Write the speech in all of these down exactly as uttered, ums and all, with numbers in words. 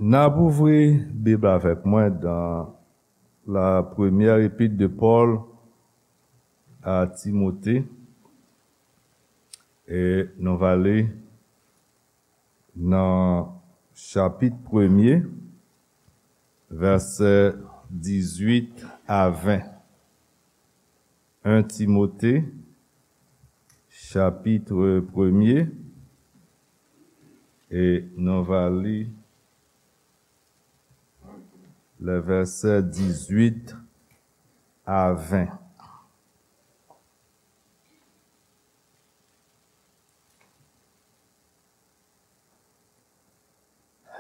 N ap ouvri Bib avèk mwen dans la première épître de Paul à Timothée. E nou va li nan chapit premye, vèsè dizuit a ven. En Timote, chapit premye, e nou va li le vèsè dizuit a ven.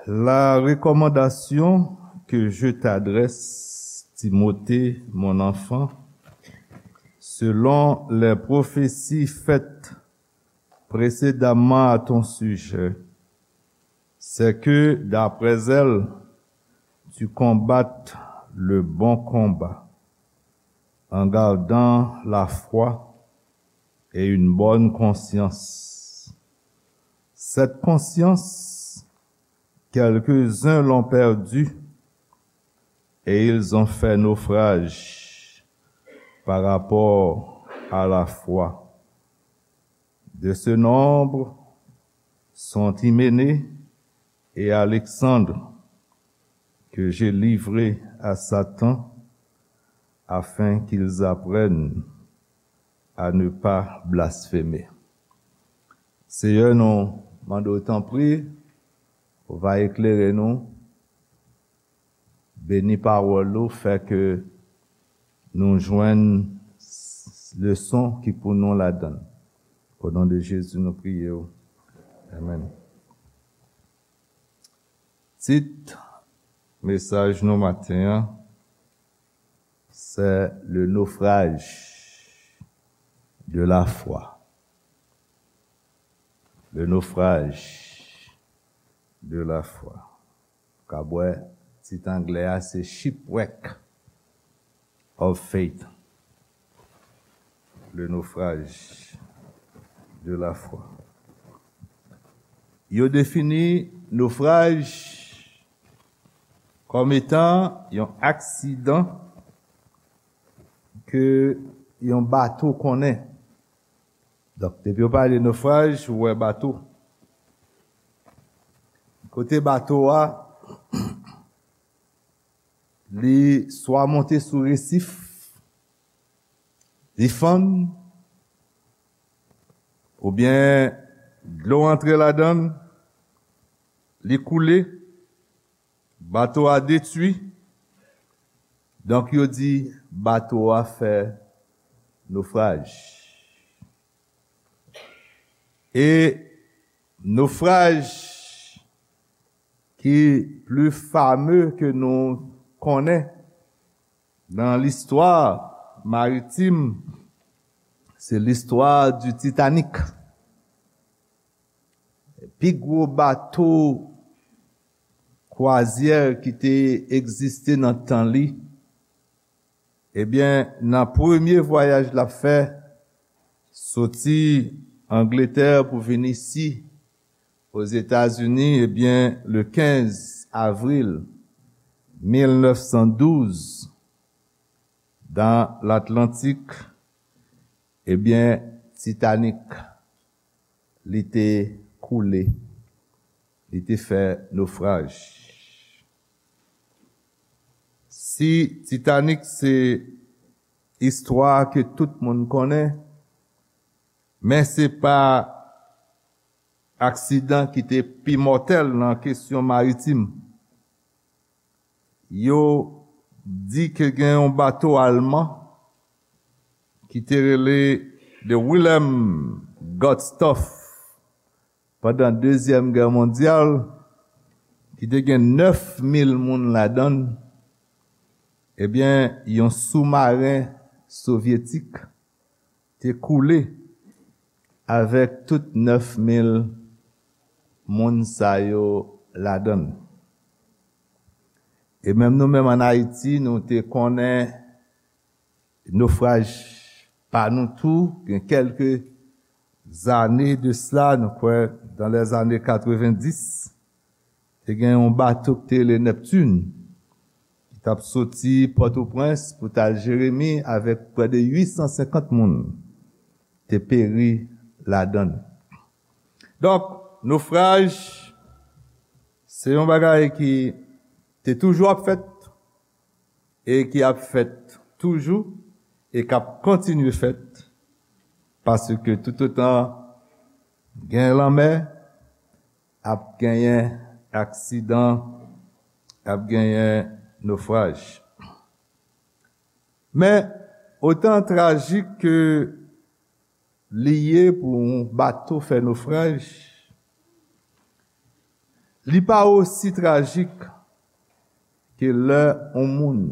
La recommandation que je t'adresse, Timothée, mon enfant, selon les prophéties faites précédemment à ton sujet, c'est que, d'après elles, tu combattes le bon combat, en gardant la foi et une bonne conscience. Cette conscience, quelques-uns l'ont perdue et ils ont fait naufrage par rapport à la foi. De ce nombre sont Hyménée et Alexandre, que j'ai livrés à Satan, afin qu'ils apprennent à ne pas blasphémer. Seyè, nou mande w, tanpri, ou va eklere nou, beni pawòl ou, fè ke nou jwenn leson ki pou nou ladan l. O non de Jezi, nou priye w. Amèn. Tit mesaj nou maten an, c'est le naufrage de la foi. Le naufrage de la foi. Ou ka wè tit anglè a, se Shipwreck of Faith. Le naufrage de la foi. Yo defini nofraj kòm etan yon aksidan ke yon bato konnen. Donk, depi yo pale nofraj, ou wè bato. Kote bato a, li swa monte sou resif, li fann, oubyen dlo antre ladan l, li koule, bato a detwi. Donk, yo di bato a fè nofraj. E nofraj ki pli fame ke nou konnen nan listwa maritim, se listwa di Titanic. Pi gwo bato kwazyè ki te egziste nan tan li, ebyen, nan premye vwayaj l ap fè, soti Angletè pou vin isi, Ozetazini, ebyen, le kenz avril mil nèf san douz, dan Latlantik, ebyen, Titanic, li te koule, li te fè nofraj. Si Titanic se istwa ke tout moun konnen, men se pa aksidan ki te pi mòtèl nan kesyon maritim. Yo di ke gen yon bato alman ki te rele The Wilhelm Gustloff pandan Dezyèm Gè Mondyal, ki te gen nèf mil moun ladan l, ebyen, yon soumaren sovyetik te koule avèk tout nèf mil moun sa yo ladan l. E menm nou menm ann Ayiti, nou te konnen nofraj pa nou tou, gen kèlke zane de sila, nou kwè dans les années quatre-vingt-dix, te gen yon bato ki te rele Neptune, ki t ap soti Pòtoprens pou t al Jeremi avèk prè de uit san senkant moun te peri ladan l. Donk, nofraj, se yon bagay ki te toujou ap fèt e ki ap fèt toujou e k ap kontinye fèt, paske toutotan gen lanmè, ap genyen aksidan, ap genyen nofraj. Men, otan trajik ke li ye pou yon bato fè nofraj, li pa osi trajik ke lè yon moun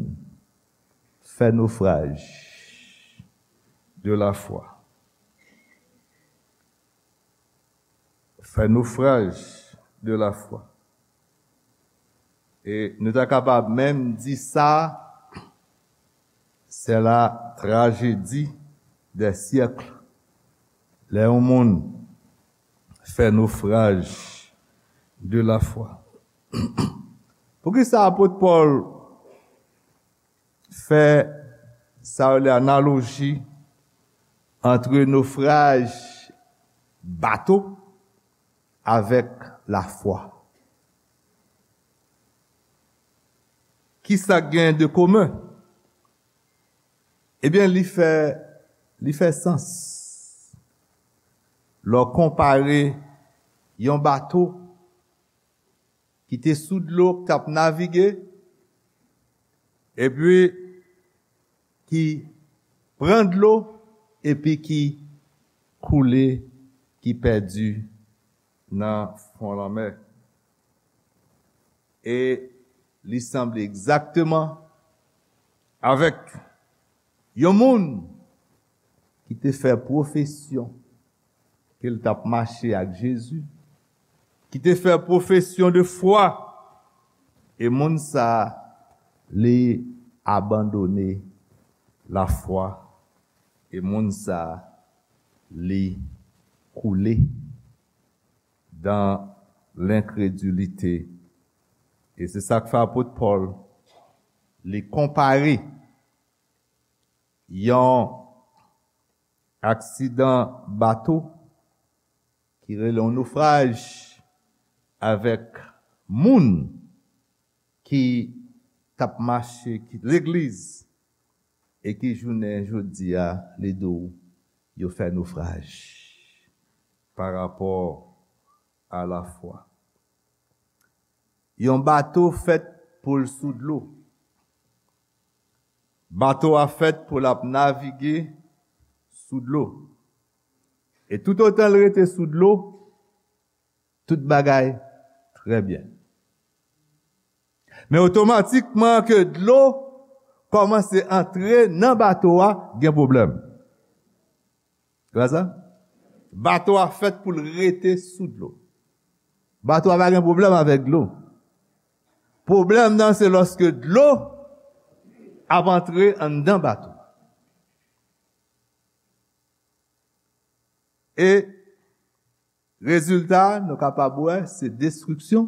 fè nofraj de lafwa. Fè nofraj de lafwa. E nou ta kapab menm di sa, c'est la tragédie des siècles. Lè yon moun fè nofraj de lafwa. Poukisa apot Pòl fè sa yo rele analoji ant nofraj bato avèk lafwa? Kisa k gen de komen? Ebyen, li fè, li fè sans lè w konpare yon bato ki te sou dlo, k t ap navige, epi ki pran dlo, epi ki koule, ki pèdi nan fon lanmè. E li sanble egzakteman avèk yon moun ki te fè pwofesyon ke l t ap mache ak Jezi, ki te fè pwofesyon de fwa, e moun sa a, li abandone lafwa, e moun sa a, li koule dans l'incrédulité. E se sa k fè apot Pòl, li konpare yon aksidan bato ki rele yon nofraj avèk moun ki t ap mache, ki legliz, e ki jounen jodi a, li di w, yo fè nofraj pa rapò a lafwa. Yon bato fèt pou l sou dlo. Bato a fèt pou l ap navige sou dlo. E toutotan l rete sou dlo, tout bagay trè byen. Men otomatikman ke dlo kòmanse antre nan bato a, gen pwoblèm. Se pa sa? Bato a fèt pou l rete sou dlo. Bato a pa gen pwoblèm avèk dlo. Pwoblèm nan se lòske dlo ap antre anndan bato. E rezilta, nou kapab wè, se destriksyon,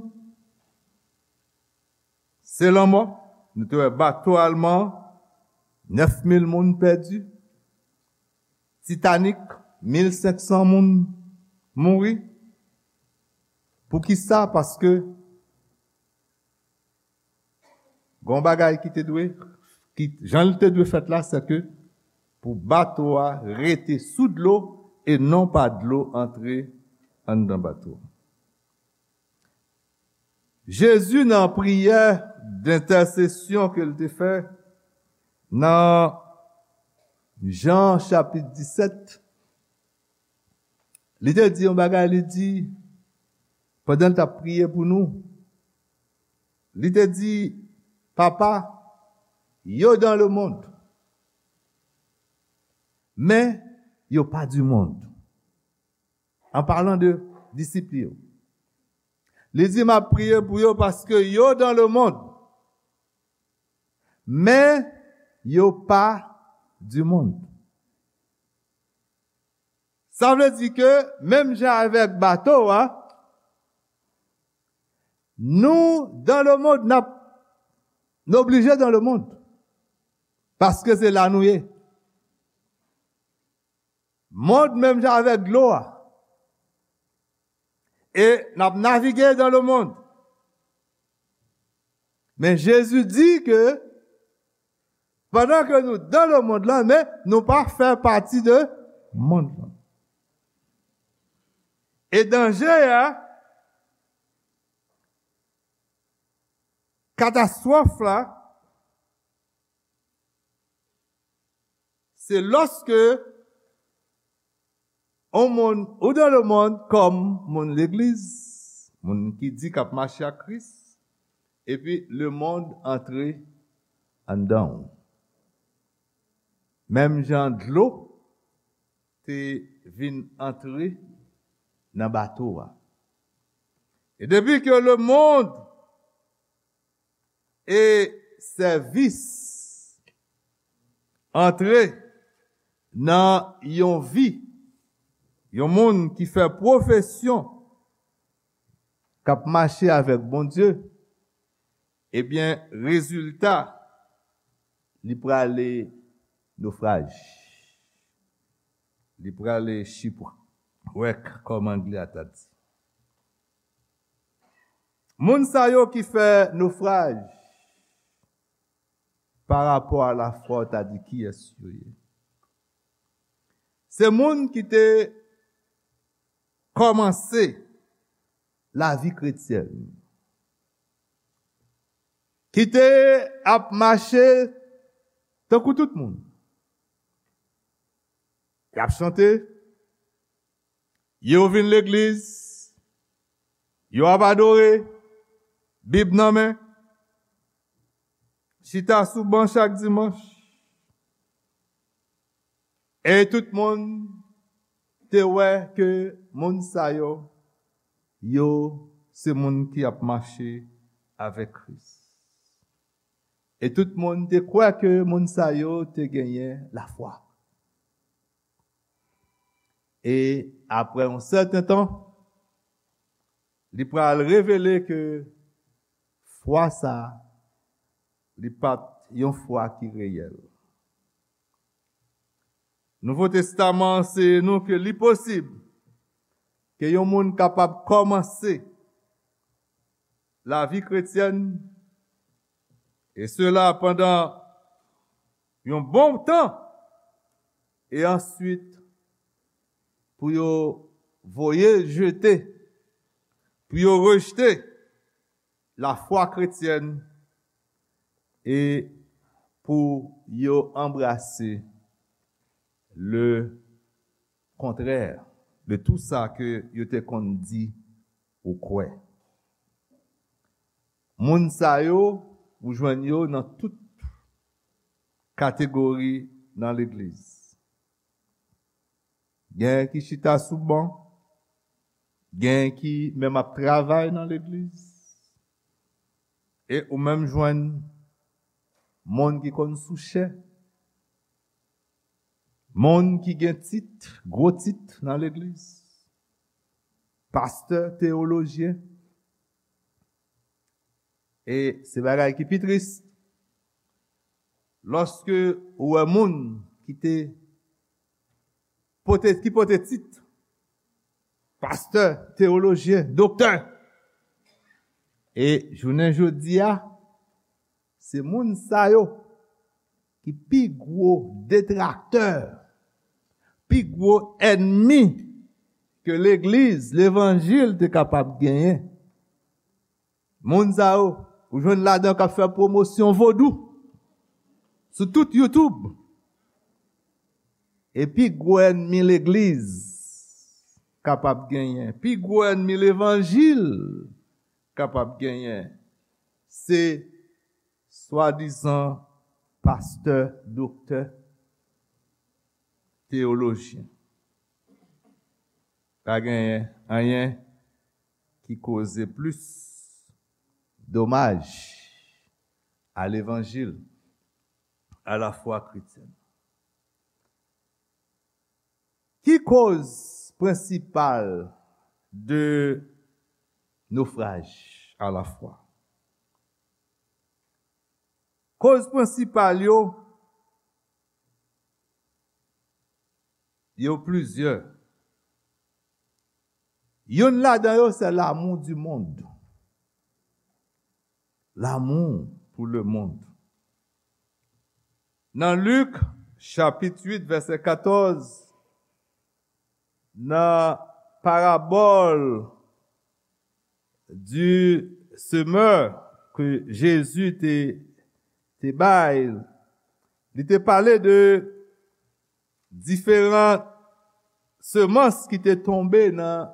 se lanmò. Nou te wè bato alman, nèf mil moun pèdi. Titanic, mil senk san moun mouri. Poukisa? Paske gon bagay ki te dwe, ki, jan l te dwe fèt la, se ke pou bato a rete sou dlo e non pa dlo antre anndan bato. Jezi, nan priyè dentèsesyon ke l te fè nan Jan chapit disèt, li te di yon bagay, li di, pandan l t ap priye pou nou, li te di, Papa, yo dans le monde, men yo pa du monde. An palan de disip li yo. Li di, M ap priye pou yo paske yo dans le monde, men yo pa du monde. Sa vle di ke, menm jan avèk bato a, Nou, dans le monde, n ap, n oblije dans le monde. Paske se la nou ye. Mond menm jan avèk dlo a. E n ap navige dans le monde. Men Jezi di ke pandan ke nou dans le monde lan, men nou pa fè pati de mond lan. E danje a, katastwòf la, se lòske on moun ou dans le monde kòm moun legliz, moun ki di k ap mache ak Kris, epi lemonn antre anndan w. Menm jan dlo te vin antre nan bato a. E depi ke lemonn e sèvis antre nan yon vi, yon moun ki fè pwofesyon k ap mache avèk Bondye, ebyen, rezilta, li prale nofraj. Li prale shipwreck, kòm anglè a ta di. Moun sa yo ki fè nofraj pa rapò a lafwa, w ta di kiyès yo ye? Se moun ki te kòmanse lavi kretyèn, ki te ap mache tankou tout moun. Y ap chante, yo vin legliz, yo ap adore, Bib nan men, chita sou ban chak dimanch. E tout moun te wè ke moun sa yo, yo se moun ki ap mache avèk Kris. E tout moun te kwè ke moun sa yo te genyen lafwa. E apre yon sèten tan, li pral revele ke fwa sa a, li pa t yon fwa ki reyèl. Nouvo Testaman anseye nou ke li posib ke yon moun kapab kòmanse lavi kretyèn, e sela pandan yon bon tan, e answit pou yo voye l jete, pou yo rejte lafwa kretyèn e pou yo anbrase le kontrè de tou sa ke yo te konn di ou kwè. Moun sa yo, ou jwenn yo nan tout kategori nan legliz. Gen ki chita sou ban, gen ki menm ap travay nan legliz, e ou menm jwenn moun ki konn sou chè, moun ki gen tit, gwo tit nan legliz, pastè, teyolojyen. E se bagay ki pi tris, lòske ou wè moun ki te pote, ki pote tit pastè, teyolojyen, doktè. E jounen jodi a, se moun sa yo ki pi gwo detraktè, pi gwo ènmi ke legliz, levanjil te kapab genyen. Moun sa yo, ou jwenn ladan k ap fè pwomosyon vodou sou tout YouTube. E pi gwo ènmi legliz kapab genyen, pi gwo ènmi levanjil kapab genyen, se swadizan pastè, doktè, teyolojyen. Pa genyen anyen ki koze plis domaj a levanjil, a lafwa kretyèn. Ki koz prensipal de nofraj à la fois. Koz prensipal yo, yo plizyè. Youn ladan yo, se l'amour du monde. L'amour pour le monde. Nan Lik, chapit uit, vèsè katòz, nan parabòl du semeur ke Jezi te, te bay, li te pale de diferan semans ki te tonbe nan,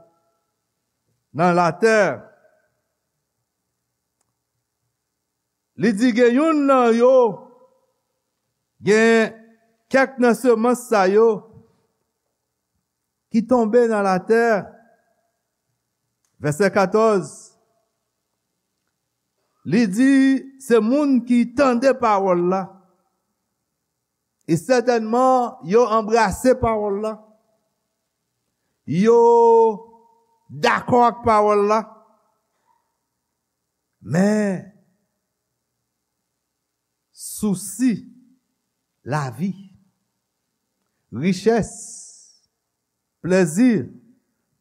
nan latè. Li di gen youn nan yo, gen kèk nan semans sa yo ki tonbe nan latè. Vèsè katòz, li di se moun ki tande pawòl la. E sètènman, yo anbrase pawòl la. Yo dakò ak pawòl la. Men, sousi lavi, richès, plèzi,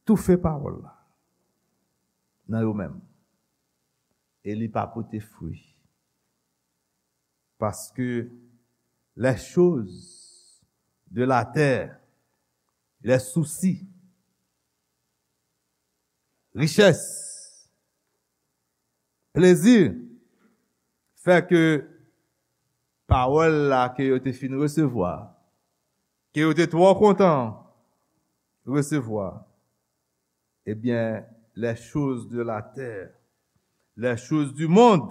toufe pawòl la nan yo menm. E li pa pote fwi. Parce que les choses de la terre, les soucis, richès, plezi, fè ke pawòl la ke yo te fin resevwa, ke yo te twò kontan resevwa, ebyen, les choses de la terre, les choses du monde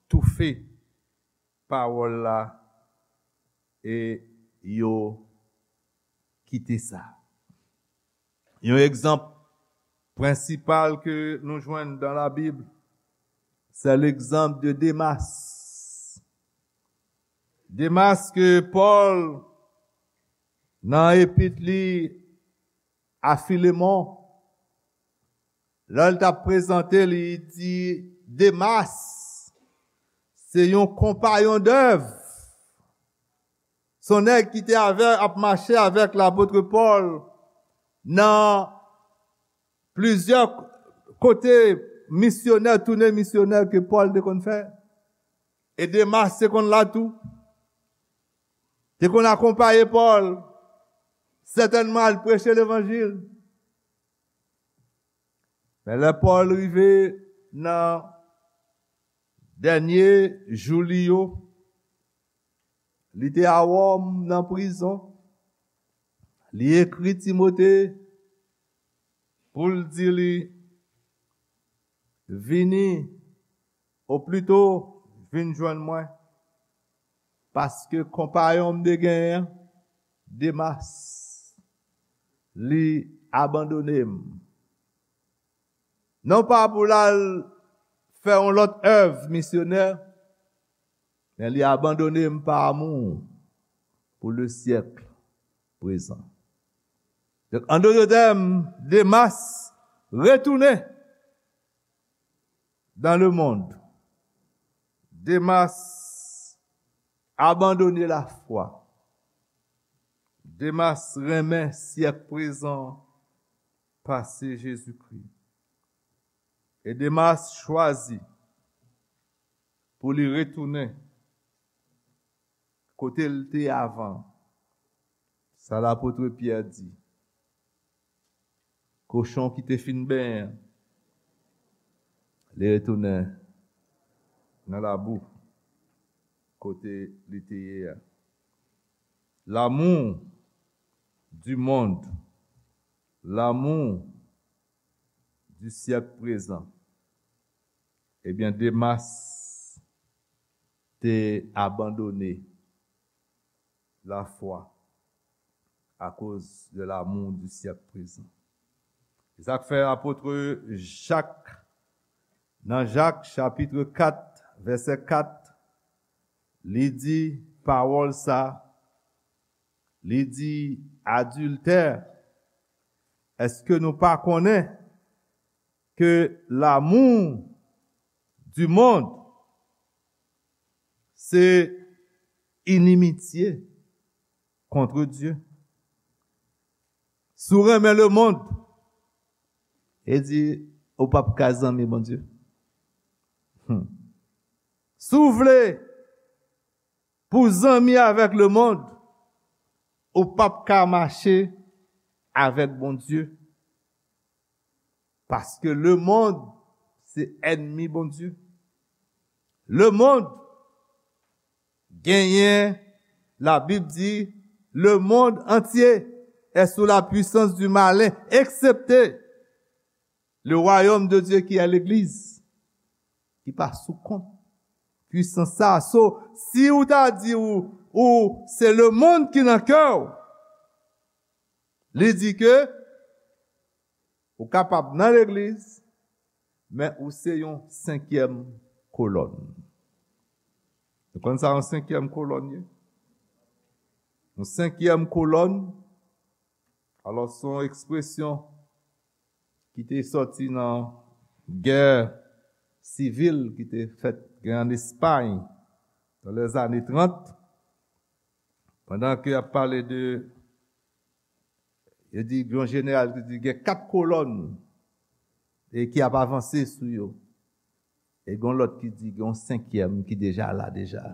toufe pawòl la e yo kite sa. Yon egzanp prensipal ke nou jwenn dans la Bible, c'est l'exemple de Demas. Demas ke Pòl, nan epit li a Filemon, lè l t ap prezante, li di Demas se yon konpayon dèv. Se yon nèg ki te avè, ap mache avèk lapot Pòl nan plizyè kote misyonè, tounen misyonè ke Pòl te konn fè. E Demas te konn la tou. Te konn akonpaye Pòl. Sètènman, al preche levanjil. Men lè Pòl rive nan dènye jou li yo, li te a Wòm nan prizon. Li ekri Timote pou l di li, vini, oplito, vin jwenn mwen, paske konpayon m te genyen an, Demas, li abandone m. Non pa pou l al fè yon lòt èv misyonè, men li abandone m pa amou pou le syèk prezan. Donk, an dòt tèm, Demas retounen dans le monde. Demas abandone lafwa. Demas renmen syèk prezan pase Jezikri. E Demas chwazi pou li retounen kote l te avan. Sa lapot Pyè di. Kochon ki te fin benyen an, li retounen nan labou kote li te ye a. L'amour du monde, l'amour du siècle présent. Ebyen, Demas te abandone lafwa akoz de l'amour du siècle présent. Se sa k fè apot Jak, nan Jak chapit kat, vèsè kat, li di pawòl sa, li di, adiltè, èske nou pa konnen ke l'amour du monde, c'est inimitié contre Dieu. Si w renmen lemonn, e di, ou p ap ka zanmi Bondye. Hmm. Si w vle pou w zanmi avèk lemonn, ou p ap ka mache avèk Bondye. Paske lemonn se ènmi Bondye. Lemonn genyen, Labib di, le monde entier est sous la puissance du malin, excepté le royaume de Dieu qui est l'église, ki pa sou kont pwisans sa. So, si ou ta di ou, ou se lemonn ki nan kè w, li di ke ou kapab nan legliz, men ou se yon senkyèm kolòn. Ou konn sa yon senkyèm kolòn ye? Yon senkyèm kolòn, alò, se yon ekspresyon ki te sòti nan gè sivil ki te fèt gen an Espay nan lèzane trant, pandan ke y ap pale de, yo di, yon jeneral ki di gen kat kolòn e ki ap avanse sou yo. E gen lòt ki di gen yon senkyèm ki deja la deja.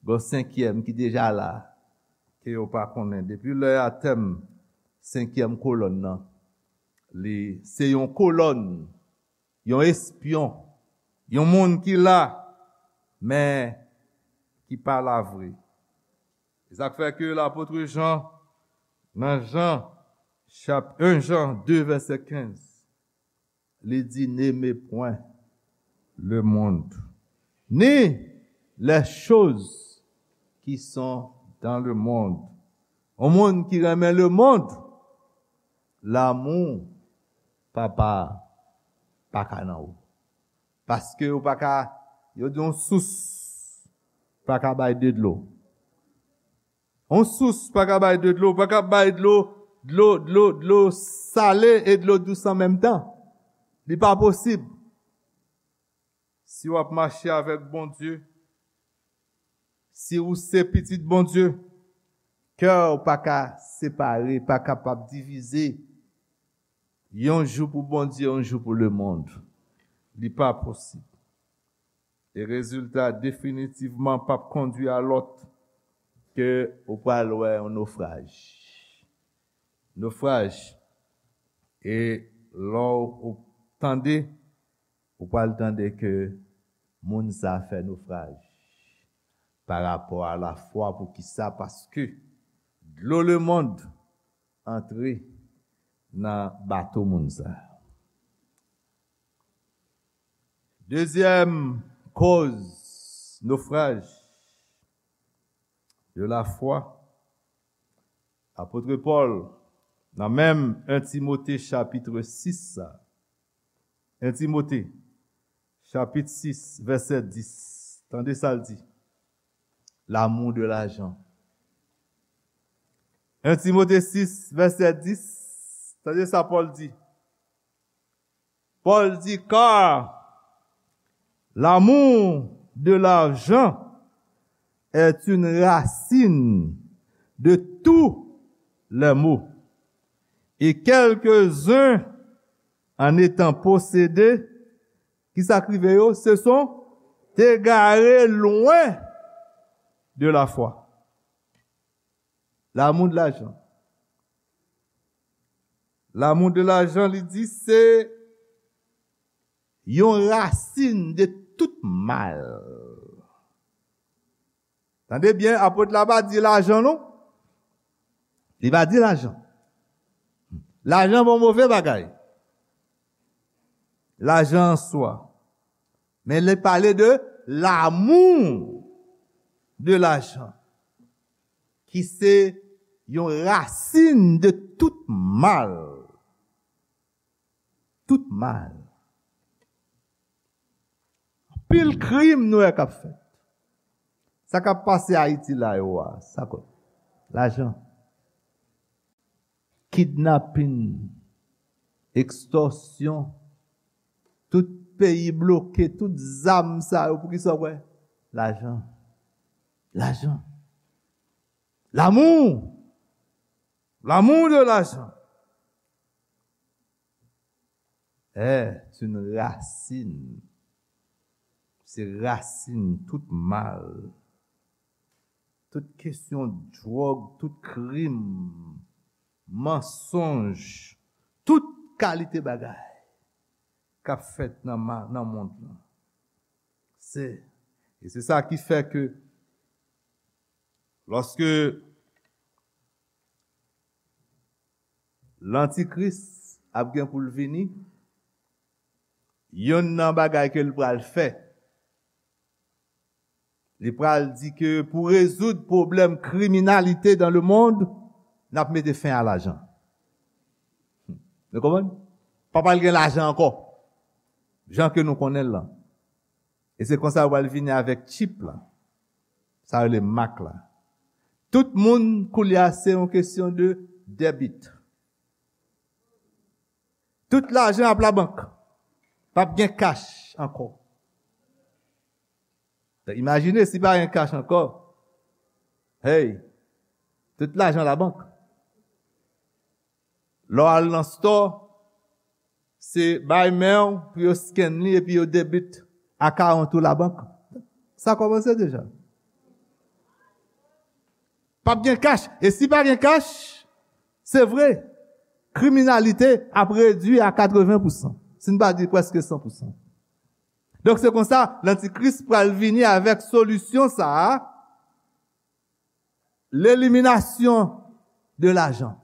Gen yon senkyèm ki deja la, ke yo pa konnen. Depi lè a tèm senkyèm kolòn nan, li se yon kolòn, yon espyon, yon moun ki la, men ki pa la vre. E sa k fè ke lapot Jan, nan Jan, chap, en Jan de, vèsè kenz, li di, n'aimez point le monde, ni les choses qui sont dans le monde. Yon moun ki renmen lemonn, lanmou Papa pa ka nan ou. Paske ou pa ka, yo di yon sous pa ka bay de dlo. Yon sous pa ka bay de dlo, pa ka bay dlo, dlo, dlo, dlo sale e dlo dous an menm tan. Li pa posib. Si w ap mache avèk Bondye, si ou se pitit Bondye, kè w pa ka separe, pa kapab divize. Yon jou pou Bondye, yon jou pou lemonn. Li pa posib. E rezilta definitivman p ap kondui a lòt ke ou pral wè yon nofraj. Nofraj. E lè w tande, ou pral tande ke moun sa fè nofraj pa rapò a lafwa. Poukisa? Paske dlo lemonn antre nan bato moun sa. Dezyèm kòz nofraj de la foi, apot Pòl, nan menm en Timote chapit sis sa. En Timote, chapit sis, vèsè dis. Tande sa l di. L'amour de l'argent. En Timote sis, vèsè dis. Tande sa Pòl di. Pòl di, car l'amour de l'argent est une racine de tous les maux. Et quelques-uns, en étant possédés, ki sa k rive yo? Se sont égarés loin de la foi. L'amour de l'argent. L'amour de l'argent, li di, se yon rasin de tout mal. Tande byen, apot la pa di lajan non. Li pa di lajan. Lajan bon move bagay. Lajan an swa. Men li pale de l'amour de l'argent, ki se yon rasin de tout mal. Tout mal. Anpil krim nou wè k ap fèt. Sa k ap pase Ayiti la yo a, sa k, lajan. Kidnapin, ekstòsyon, tout peyi bloke, tout zam sa yo, poukisa w kwè? Lajan. Lajan. L'amour. L'amour de l'argent est une racine. Se rasin tout mal. Tout kesyon dwòg, tout krim, mansonj, tout kalite bagay k ap fèt nan, ma- nan mond lan. Se, e se sa ki fè ke lòske lantikris ap gen pou l vini, yonn nan bagay ke l pral fè, li pral di ke pou rezoud pwoblèm kriminalite dans le monde, n ap mete fen a lajan. Nou konprann? Pa pral gen lajan ankò, jan ke nou konnen l lan. E se konsa yo pral vini avèk chip la. Sa yo rele mak la. Tout moun, koulye a, se yon kesyon de debit. Tout lajan ap labank. P ap gen kach ankò. Imajine si pa gen kach ankò. Hey, tout lajan labank. Lè w al nan store, se bay men w pou yo scan li epi yo debit account ou labank. Sa kòmanse deja. P ap gen kach. E si pa gen kach, se vre, kriminalite ap redui a katreven pousan, si n pa di prèske san pousan. Donk, se konsa, lantikris pral vini avèk solisyon sa a, l'élimination de l'argent.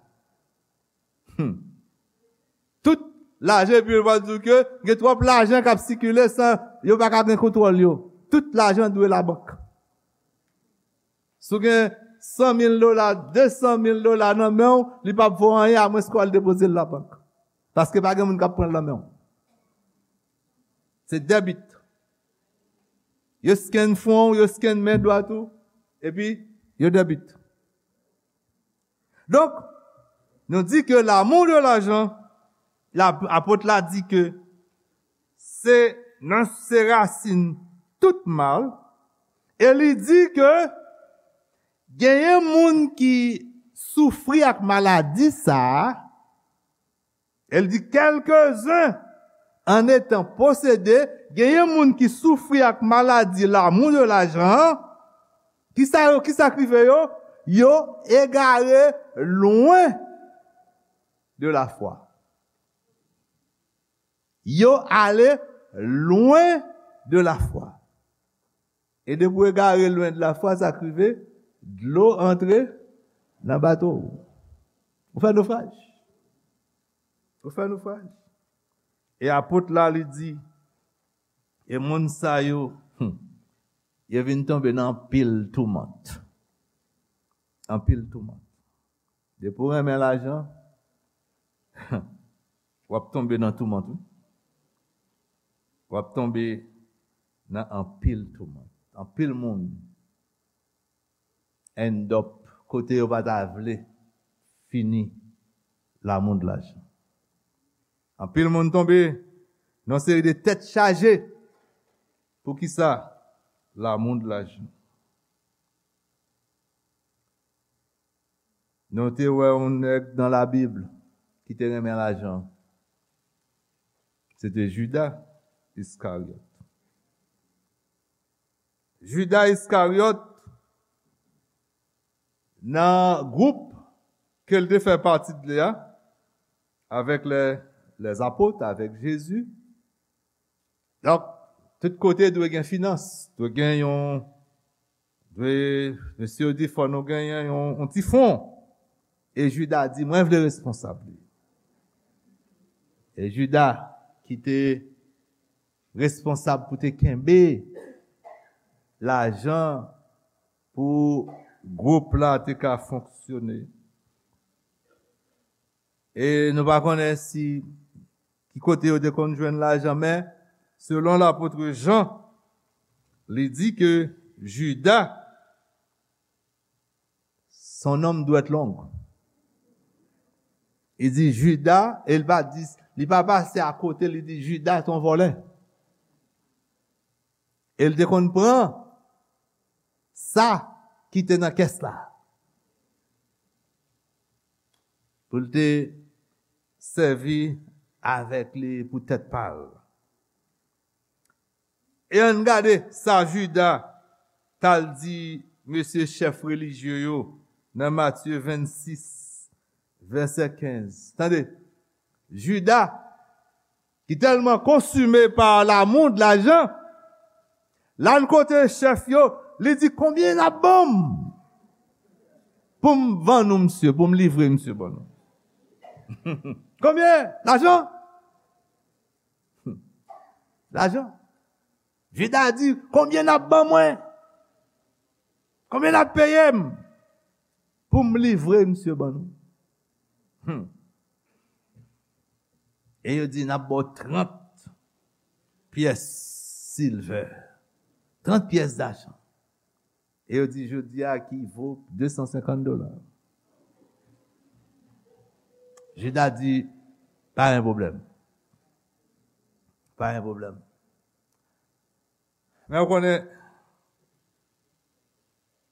Hmm. Tout lajan, epi yo pral di w ke gen twòp lajan k ap sikile san yo pa ka gen kontwòl yo. Tout lajan dwe labank. Si w gen san mil dola, de san mil dola nan men w, li p ap vo anyen amwenske w al depoze l labank. Paske pa gen moun k ap pran l nan men w. Se debit. Yo scan fwon w, yo scan men dwat ou, epi yo debit. Donk, nou di ke l'amour de l'argent, la, apot la di ke se nan, se rasin tout mal, e li di ke genyen moun ki soufri ak maladi sa a, e l di, quelques-uns en étant possédés, genyen moun ki soufri ak maladi l'amour de l'argent an, kisa yo, kisa k rive yo? Yo egare lwen de la foi. Yo ale lwen de la foi. E depi w egare lwen de la foi, sa k rive? Dlo antre nan bato w. Ou fè nofraj. Ou fè nofraj. E apot la, li di, e moun sa yo, hmm, yo vin tonbe nan anpil toumant. Anpil toumant. Depi w renmen lajan, w ap tonbe nan toumant, wi. W ap tonbe nan anpil toumant. Anpil moun end up kote yo pa ta vle fini l'amour de l'argent. Anpil moun tonbe nan yon seri de tèt chaje. Poukisa? L'amour de l'argent. Nou te wè yon nèg nan Labib ki te renmen lajan. Se te Jida Iskaryòt. Jida Iskaryòt, nan gwoup ke l te fè pati de li a, avèk lè, lèzapot, avèk Jezi. Donk, tout kote dwe gen finans, dwe gen yon, dwe, mesye yo di fò nou genyen yon, yon ti fon. E Jida di, mwen vle responsab li. E Jida, ki te responsab pou te kenbe lajan pou gwoup la te ka fonksyone. E nou pa konnen si ki kote yo te konn jwenn lajan, men selon lapot Jan, li di ke Jida, son nonm dwèt long. Li di Jida, e li pa di, li pa pase akote, li di Jida se yon vòlè. E l te konn pran sa ki te nan kès la pou l te sèvi avèk li pou tèt pa l. E ann gade sa Jida t al di mesye chèf relijye yo nan Matye vennsis, vèsè kenz. Tande, Jida, ki tèlman konsime pa lamou de lajan, l al kote chèf yo, li di, "Konbyen n ap ban m pou m vann ou misye, pou m livre misye ban nou?" Konbyen? Lajan? Lajan. Jida di, "Konbyen n ap ban mwen? Konbyen n ap peye m pou m livre misye ban nou?" Hmm. E yo di, "N ap ba w trant pyès silvè, trant pyès dajan." E yo di, "Jodi a ki vo de san senkant dola." Jida di, "Pa gen pwoblèm. Pa gen pwoblèm." Men w konnen,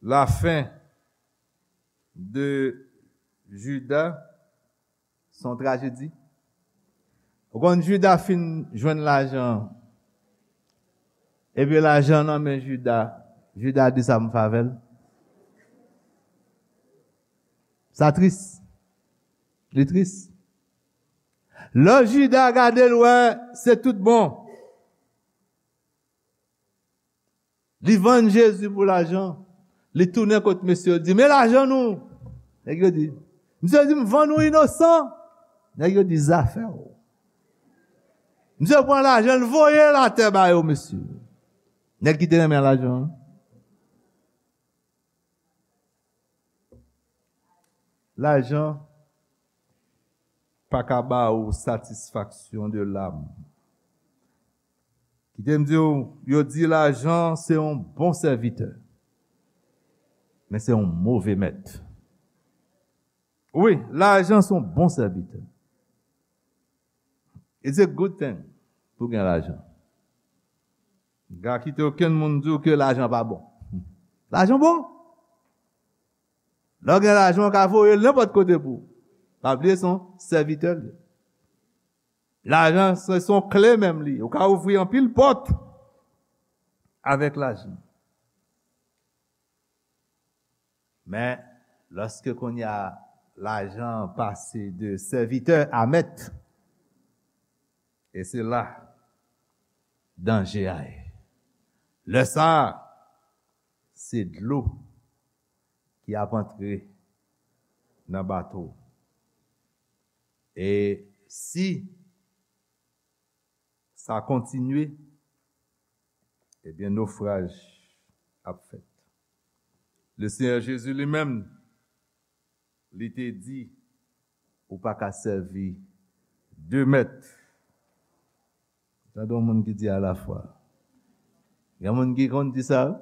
lafen de Jida se yon trajedi. Ou konn Jida fin jwenn lajan, epi lajan nan men Jida, Jida di, "Sa m fè avè l." Sa tris. Li tris. Lè Jida gade l, wè, se tout bon. Li vann Jezi pou lajan. Li tounen kot mesye yo, di, "Men lajan nou." Nèg yo di, "Misye di m vann ou inosan." Nèg yo di, "Zafè w." Misye pran lajan, l voye l atè ba yo, mesye. Nèg ki te renmen lajan an. Lajan pa ka ba ou satisfaksyon de lam. Kite m di w, yo di lajan se yon bon sèvitè, men se yon move mèt. Wi, lajan se yon bon sèvitè. It's a good thing pou gen lajan. M pa kite okenn moun di w ke lajan pa bon. Lajan bon. Lè w gen lajan, w ka voye l nenpòt kote pou ou. Pa bliye se yon sèvitè l ye. Lajan se, se yon kle menm li ye. Ou ka ouvri anpil pòt avèk lajan. Men, lòske kounye a lajan pase de sèvitè a mèt, e se la danje a ye. Lè sa a, se dlo ki ap antre nan bato. E si sa kontinye, ebyen, nofraj ap fèt. Le Senyè Jezi li menm, li te di, ou pa ka sèvi de mèt. Tande yon moun ki di alafwa. Gen moun ki konn di sa, wi.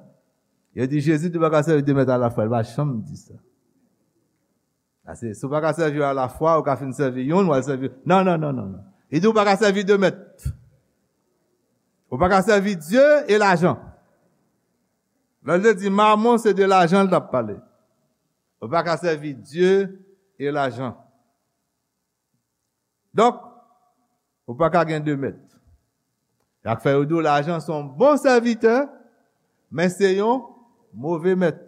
Yo di Jezi di ou pa ka sèvi de mèt alafwa, li pa janm di sa. Paske si w pa ka sèvi yo alafwa, ou ka fin sèvi youn, w al sèvi. Non, non, non, non, non. Li di ou pa ka sèvi de mèt. Ou pa ka sèvi Dye e lajan. Lè l te di mamon, se de lajan l t ap pale. Ou pa ka sèvi Dye e lajan. Donk, ou pa ka gen de mèt. Sa k fè yo di w lajan se yon bon sèvitè, men se yon move mèt.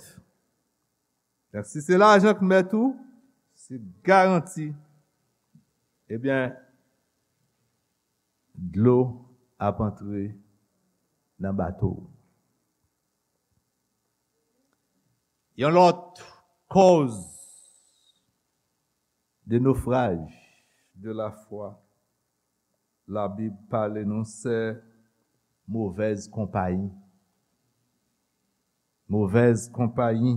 Donk, si se lajan k mèt ou, se garanti, ebyen, dlo ap antre nan bato w. Yon lòt kòz de nofraj de lafwa Labib pale nou, se movèz konpayi. Movèz konpayi.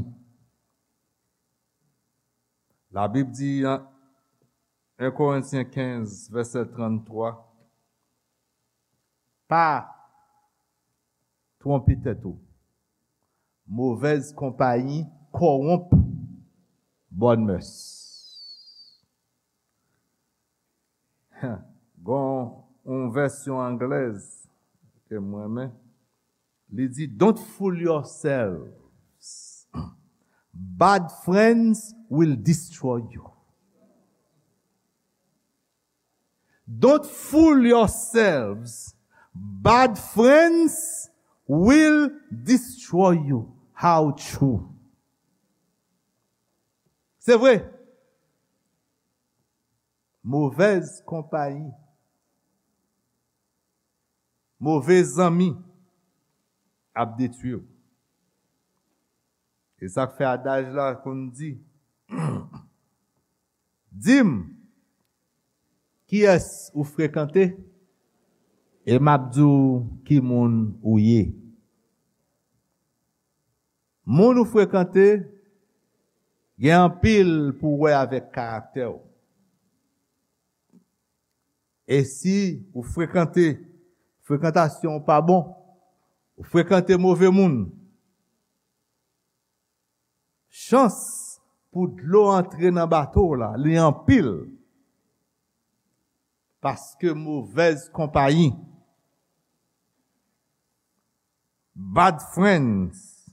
Labib di nan en Korentyen kenz, vèsè tranntwa, pa twonpe tèt ou. Movèz konpayi kòwonp bòn mès. Gon yon vèsyon anglèz ke mwen renmen. Li di, "Don't fool yourselves. Bad friends will destroy you." Don't fool yourselves. Bad friends will destroy you. How true. Se vre. Movèz konpayi, move zanmi ap detwi w. E sa k fè adaj la konn di, di m, kiyès ou frekante, e m ap di w ki moun ou ye. Moun ou frekante gen anpil pou wè avèk karaktè w. E si ou frekante, frekantasyon w pa bon, ou frekante move moun, chans pou dlo antre nan bato w la, li anpil. Paske movèz konpayi, bad friends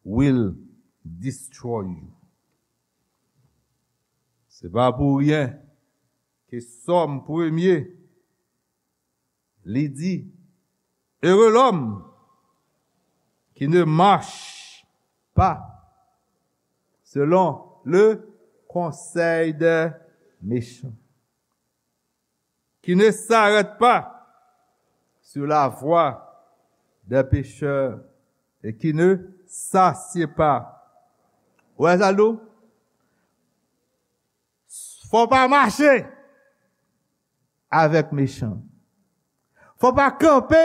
will destroy you. Se pa pou ryen ke Sòm premye, li di, "Heureux l'homme qui ne marche pas selon le conseil des méchants, qui ne s'arrête pas sur la voie des pécheurs et qui ne s'assied pas." Ou wè sa l di w? Fò w pa mache avèk mechan. Fò w pa kanpe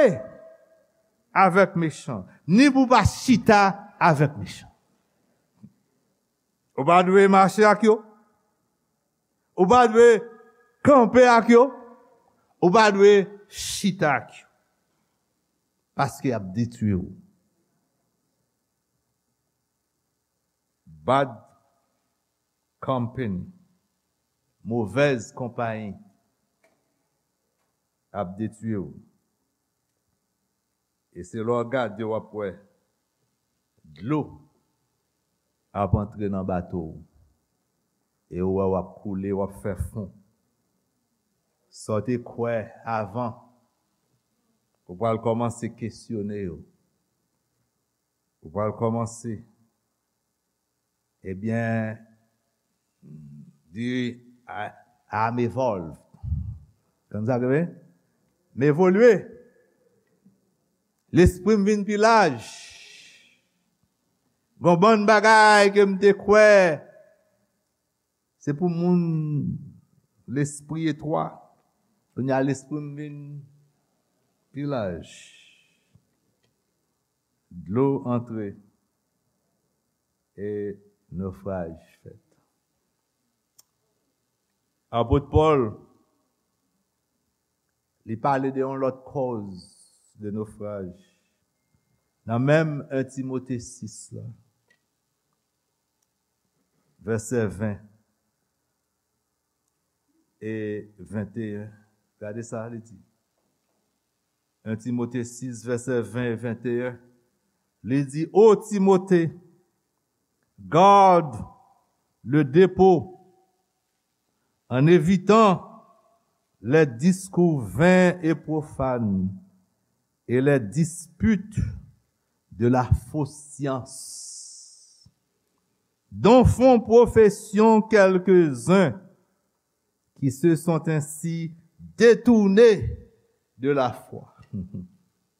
avèk mechan. Ni pou w pa chita avèk mechan. Ou pa dwe mache ak yo. Ou pa dwe kanpe ak yo. Ou pa dwe chita ak yo. Paske y ap detwi w. Bad company, movèz konpayi, ap detwi w. E se lè w gade, w ap wè dlo ap antre nan bato w. E w wè w ap koule, w ap fè fon. Sa w te kwè avan, ou pral kòmanse kesyone yo. Ou pral kòmanse, ebyen, di, "I, I'm evolve." Konn sa ke m evolye. Lespri m vin pi laj. Gon bann bagay ke m te kwè se pou moun lespri etwa. Kounye a lespri m vin pi laj. Dlo antre e nofraj fèt. Apot Pòl, li pale de yon lòt kòz de nofraj. Nan menm en Timote sis la, vèsè ven e venteyen. Gade sa li di. En Timote sis, vèsè ven e venteyen. Li di, "Ô Timothée, garde le dépôt en évitant les discours vains et profanes et les disputes de la fausse science, dont font profession quelques-uns qui se sont ainsi détournés de la foi."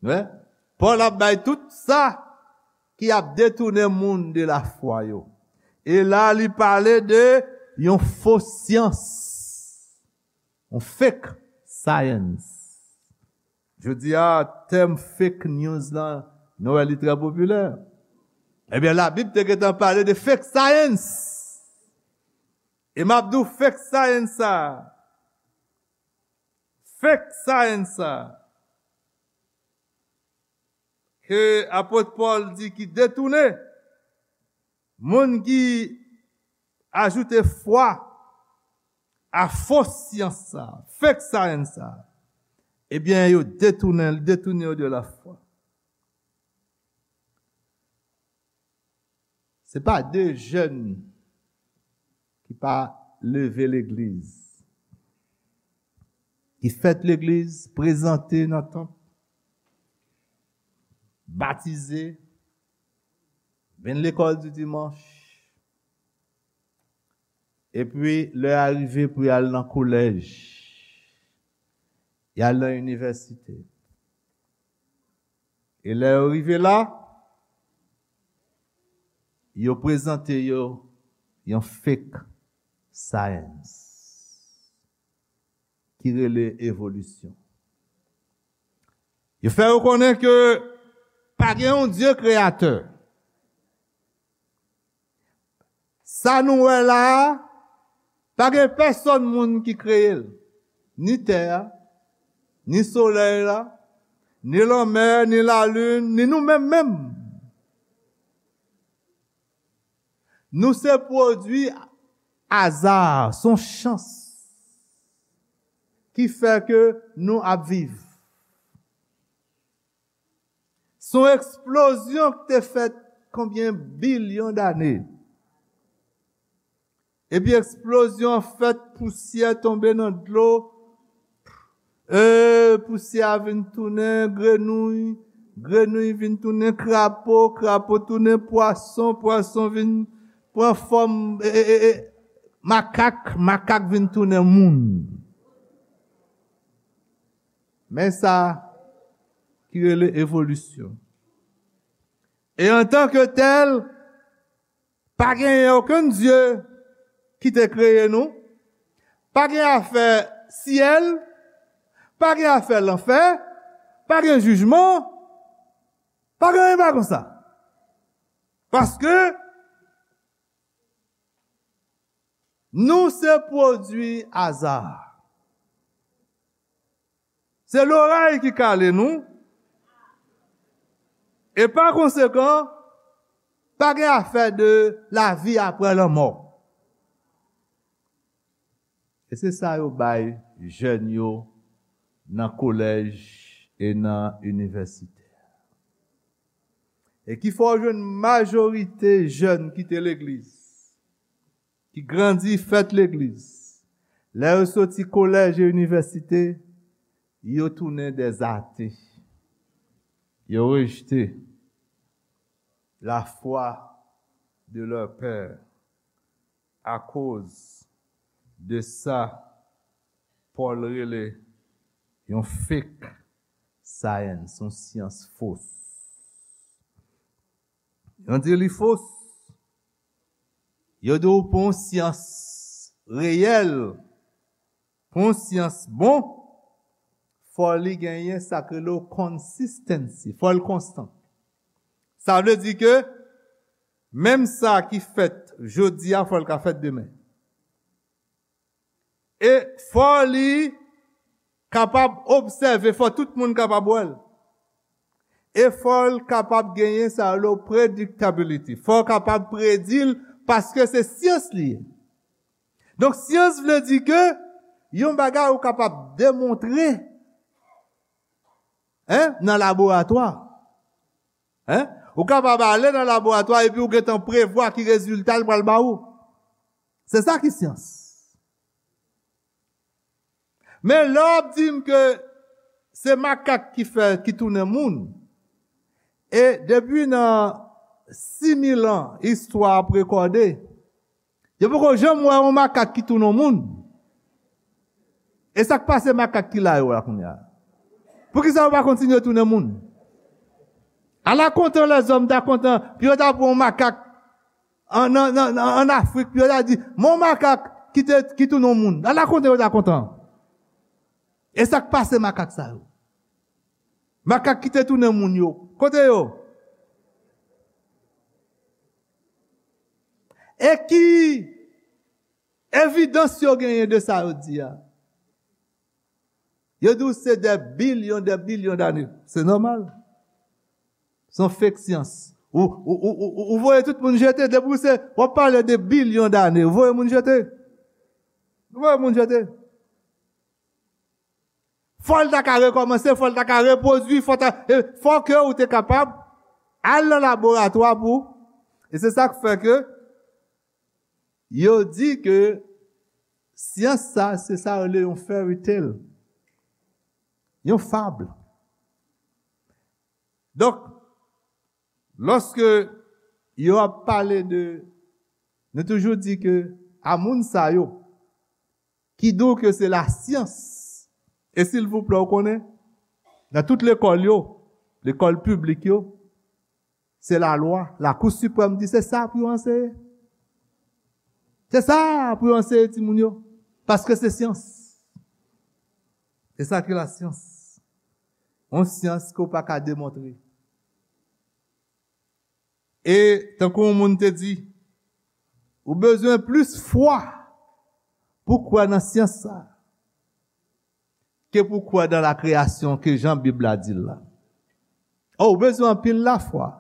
Wi. Pòl ap bay tout sa ki ap detounen moun de lafwa yo. E la, li pale de yon fo syans, yon fake science. Jodi a, tèm fake news lan, nou wè li trè popilè. Ebyen, Labib te gentan pale de fake science. E m ap di w fake science sa. Fake science sa. Ke apot Pòl di ki detounen. Moun ki ajoute fwa a fo syans sa, fake science sa, ebyen, yo detounen, detounen yo de lafwa. Se pa de jèn ki pa leve legliz, ki fèt legliz, prezante nan tanp, batize, vin lekòl di dimanch, epi lè a rive pou y al nan kolèj, y al nan inivèsite. E lè yo rive la, yo prezante yo yon fake science ki rele evolisyon. Yo fè yo konnen ke pa gen yon Dye kreyatè. Sa nou wè la a, pa gen pèsonn moun ki kreye l. Ni tè a, ni solèy la, ni lanmè, ni lalin, ni nou menm menm. Nou se pwodui aza, se yon chans ki fè ke nou ap viv. Se yon eksplozyon ki te fèt konbyen bilyon dane. Epi eksplozyon an fèt, pousyè tonbe nan dlo. E pousyè a vin tounen grenouy, grenouy vin tounen krapo, krapo tounen pwason, pwason vin pran fòm e, e, e, e, makak, makak vin tounen moun. Men sa ki rele evolisyon. E antanke tèl, pa genyen okenn Dye ki te kreye nou, pa gen afè syèl, pa gen afè lanfè, pa gen jijman, pa gen anyen pa konsa. Paske nou se pwodui aza. Se loray ki kale nou. E pa konsekan, pa gen afè de lavi apre lanmò. E se sa yo bay jèn yo nan kolèj e nan inivèsite. E ki fè w jwenn majorite jèn kite legliz, ki grandi, fèt legliz. Lè yo soti kolèj e inivèsite, yo tounen dèzate. Yo rejte la foi de leur père. Akoz de sa, Pòl rele yon fake science, yon syans fos. Yo di li fos. Yo di w pou yon syans reyèl, pou yon syans bon, fò li genyen sa k rele w consistency, fò l konstan. Sa vle di ke menm sa ki fèt jodi a, fò l ka fèt demen. E fò li kapab obsève, fò tout moun kapab wè l. E fò l kapab genyen sa yo rele predictability. Fò w kapab predi l, paske se syans li ye. Donk, syans vle di ke yon bagay ou kapab demontre, en, nan laboratwa. En? Ou kapab ale nan laboratwa epi ou gentan prevwa ki rezilta l pral ba ou. Se sa ki syans. Men lè w ap di m ke se makak ki fè, ki tounen moun, e depi nan sis mil an istwa ap rekòde, yo poko janm wè yon makak ki tounen yon moun. E sa k pase makak ki la yo la kounye a? Poukisa yo pa kontinye tounen moun? Ala kontan lèzòm ta kontan pou yo ta pran yon makak an, an, an, an Afrik, pou yo ta di, men yon makak ki te, ki tounen yon moun. Ala kontan yo ta kontan. E sa k pase makak sa yo? Makak ki te tounen moun yo, kote yo? E ki evidans yo genyen de sa yo di a? Yo di w se dè bilyon, dè bilyon dane. Se nòmal. Se yon fake syans. Ou, ou, ou, ou, ou voye tout moun jete. Depi w se, w ap pale de bilyon dane, ou voye moun jete. Ou voye moun jete. Fò l ta ka rekòmanse, fò l ta ka repwodui, fò ta, e, fò ke ou te kapab al nan laboratwa pou, E se sa k fè ke yo di ke syans sa, se sa yo rele yon fairy tale, yon fab. Donk, lòske yo ap pale de, nou toujou di ke a moun sa yo ki di w ke se lasyans, e silvouplè, w konnen, nan tout lekòl yo, lekòl piblik yo, se lalwa, Lakou Siprèm di se sa pou yo anseye. Se sa pou yo anseye timoun yo, paske se syans. Se sa ki lasyans. Yon syans ke w pa ka demontre. E tankou yon moun te di, ou bezwen plis fwa pou kwè nan syans sa ke pou kwè nan la kreyasyon ke jan Bib la di l la. Oh, ou bezwen anpil lafwa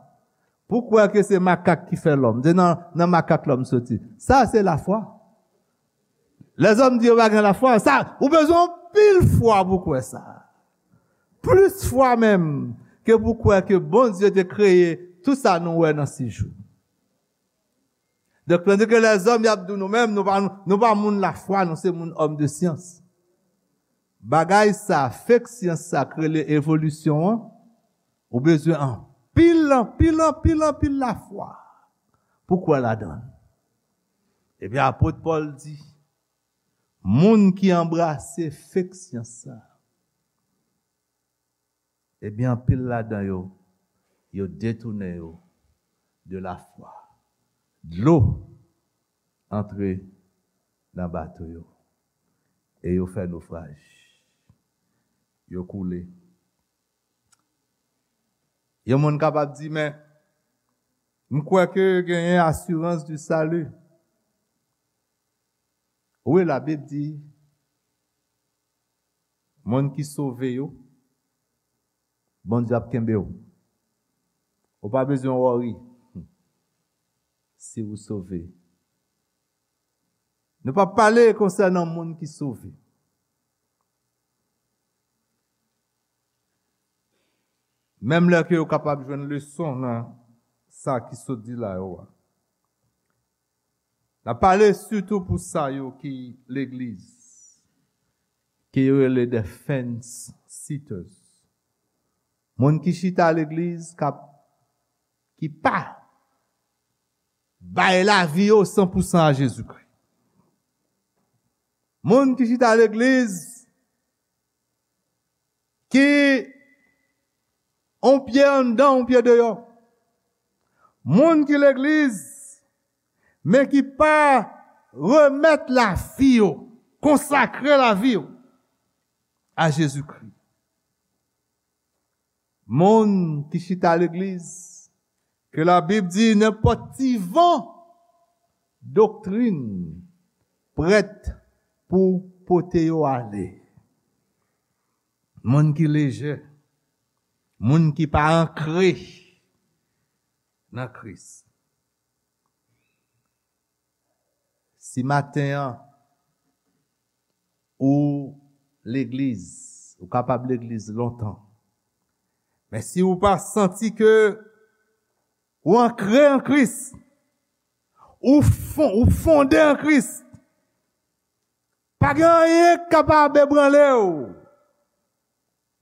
pou kwè ke se makak ki fè lòm. Se nan, nan makak lòm soti. Sa se lafwa. Lèzòm di yo pa gen lafwa. Sa, ou bezwen anpil fwa pou kwè sa. Plis fwa menm ke pou kwè ke Bondye te kreye tout sa nou wè nan sis jou. Donk, tandis ke lèzòm y ap di w nou menm, nou pa, nou pa moun lafwa, nou se moun òm de syans. Bagay sa, fake syans sa k rele evolisyon an, ou bezwen anpil, anpil, anpil, anpil lafwa pou kwè ladan l. Ebyen, apot Pòl di, moun ki anbrase fake syans sa, ebyen, anpil ladan yo, yo detounen yo de lafwa. Dlo antre nan bato yo e yo fè nofraj. Yo koule. Yon moun kapab di, men, m kwè ke genyen asirans di sali. Wi, Labib di, moun ki sove yo, Bondye ap kenbe w. Ou pa bezwen worry si ou sove. Nou p ap pale konsènan moun ki sove. Menm lè ke yo kapab jwenn leson nan sa ki sot di la yo a. N ap pale sitou pou sa yo ki legliz, ke yo rele the fence sitters. Moun ki chita legliz k ap, ki pa bay lavi yo san pou san a Jezikri. Moun ki chita legliz ki on pye anndan, on pye deyò. Moun ki legliz, men ki pa remèt lavi yo, konsakre lavi yo a Jezikri. Moun ki chita legliz, ke Labib di nenpòt ti van doktrin prèt pou pote yo ale. Moun ki lejè, moun ki pa ankre nan Kris. Si maten an, ou legliz, ou kapab legliz lontan, men si ou pa santi ke ou ankre an Kris, ou fon-, ou fonde an Kris, pa gen anyen k kapab ebranle w.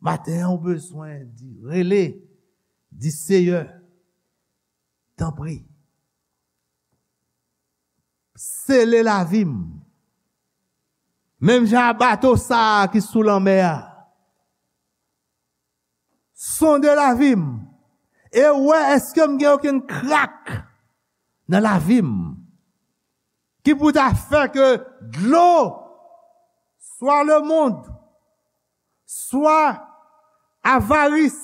Maten an, ou bezwen di, rele, di, Seyè, tanpri, sele lavi m. Menm jan a bato sa a ki sou lanmè a. Sonde lavi m e wè èske m gen okenn krak nan lavi m ki pou ta fè ke dlo, swa lemonn, swa avaris,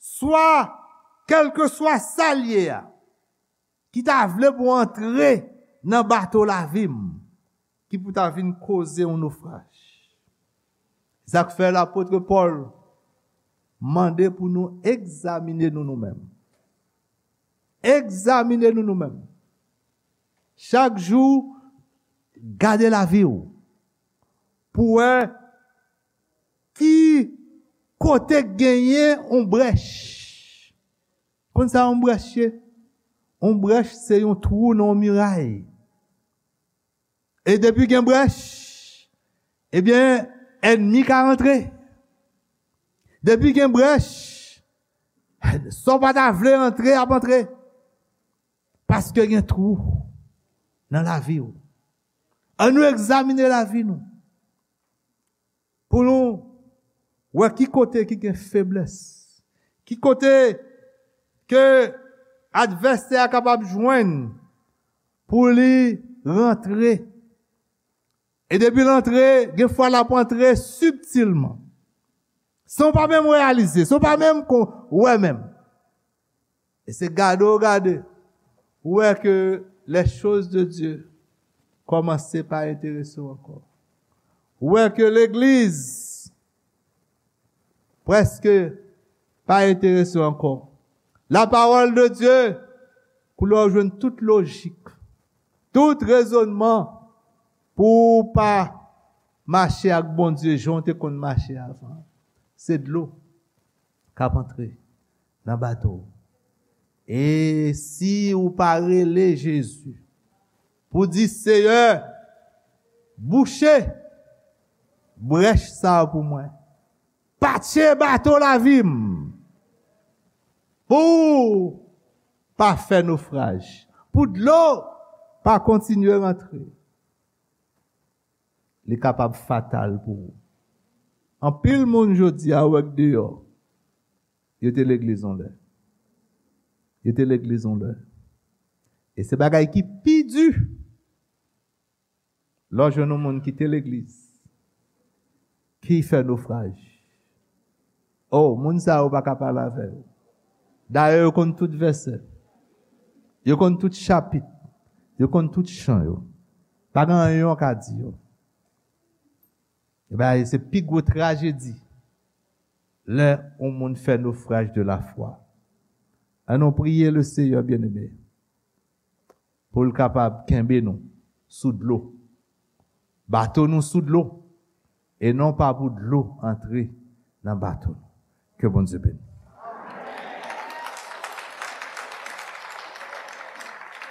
swa kèlkeswa sa l ye a, ki ta vle pou antre nan bato lavi m, ki pou ta vin koze yon nofraj. Sa k fè lapot Pòl mande pou nou egzamine nou nou menm. Egzamine nou nou menm. Chak jou, gade lavi w pou wè ki kote k genyen yon brèch. Konn sa yon brèch ye? Yon brèch se yon twou nan yon miray. E depi gen brèch, ebyen, ènmi ka rantre. Depi gen brèch, sa w pa ta vle antre, ap antre. Paske gen twou nan lavi w. Ann nou egzamine lavi nou. Pou nou wè ki kote ki gen feblès. Ki kote ke advèsè a kapab jwenn pou li rantre. E depi l antre, gen fwa l ap antre sibtilman. San w pa menm reyalize, san w pa menm kon, wè menm. E se gade w gade, ou wè ke les choses de Dieu kòmanse pa enterese w ankò. Ou wè ke legliz prèske pa enterese w ankò. La parole de Dieu, koulè w jwenn tout lojik, tout rezònman pou w pa mache ak Bondye jan w te konn mache avan. Se dlo k ap antre nan bato w. E si ou pa rele Jezi pou di, Seyè, bouche brèch sa a pou mwen. Patche bato lavi m. Pou pa fè nofraj. Pou dlo pa kontinye rantre. Li kapab fatal pou ou. Anpil moun jodi a ou wè k deyò. Yo te legliz yon lè. Yo te legliz yon lè. E se bagay ki pi di lè w jwenn yon moun ki te legliz, ki fè nofraj. Oh, moun sa yo pa ka pale avè yo. Dayè, yo konn tout vèsè. Yo konn tout chapit. Yo konn tout chan yo. Pa gen anyen yo ka di yo. Ebyen, se pi gwo trajedi lè yon moun fè nofraj de la fwa. Ann nou priye le Seyè, byeneme, pou l kapab kenbe nou sou dlo. Bato nou sou dlo, e non pa pou dlo antre nan bato nou. Ke Bondye beni.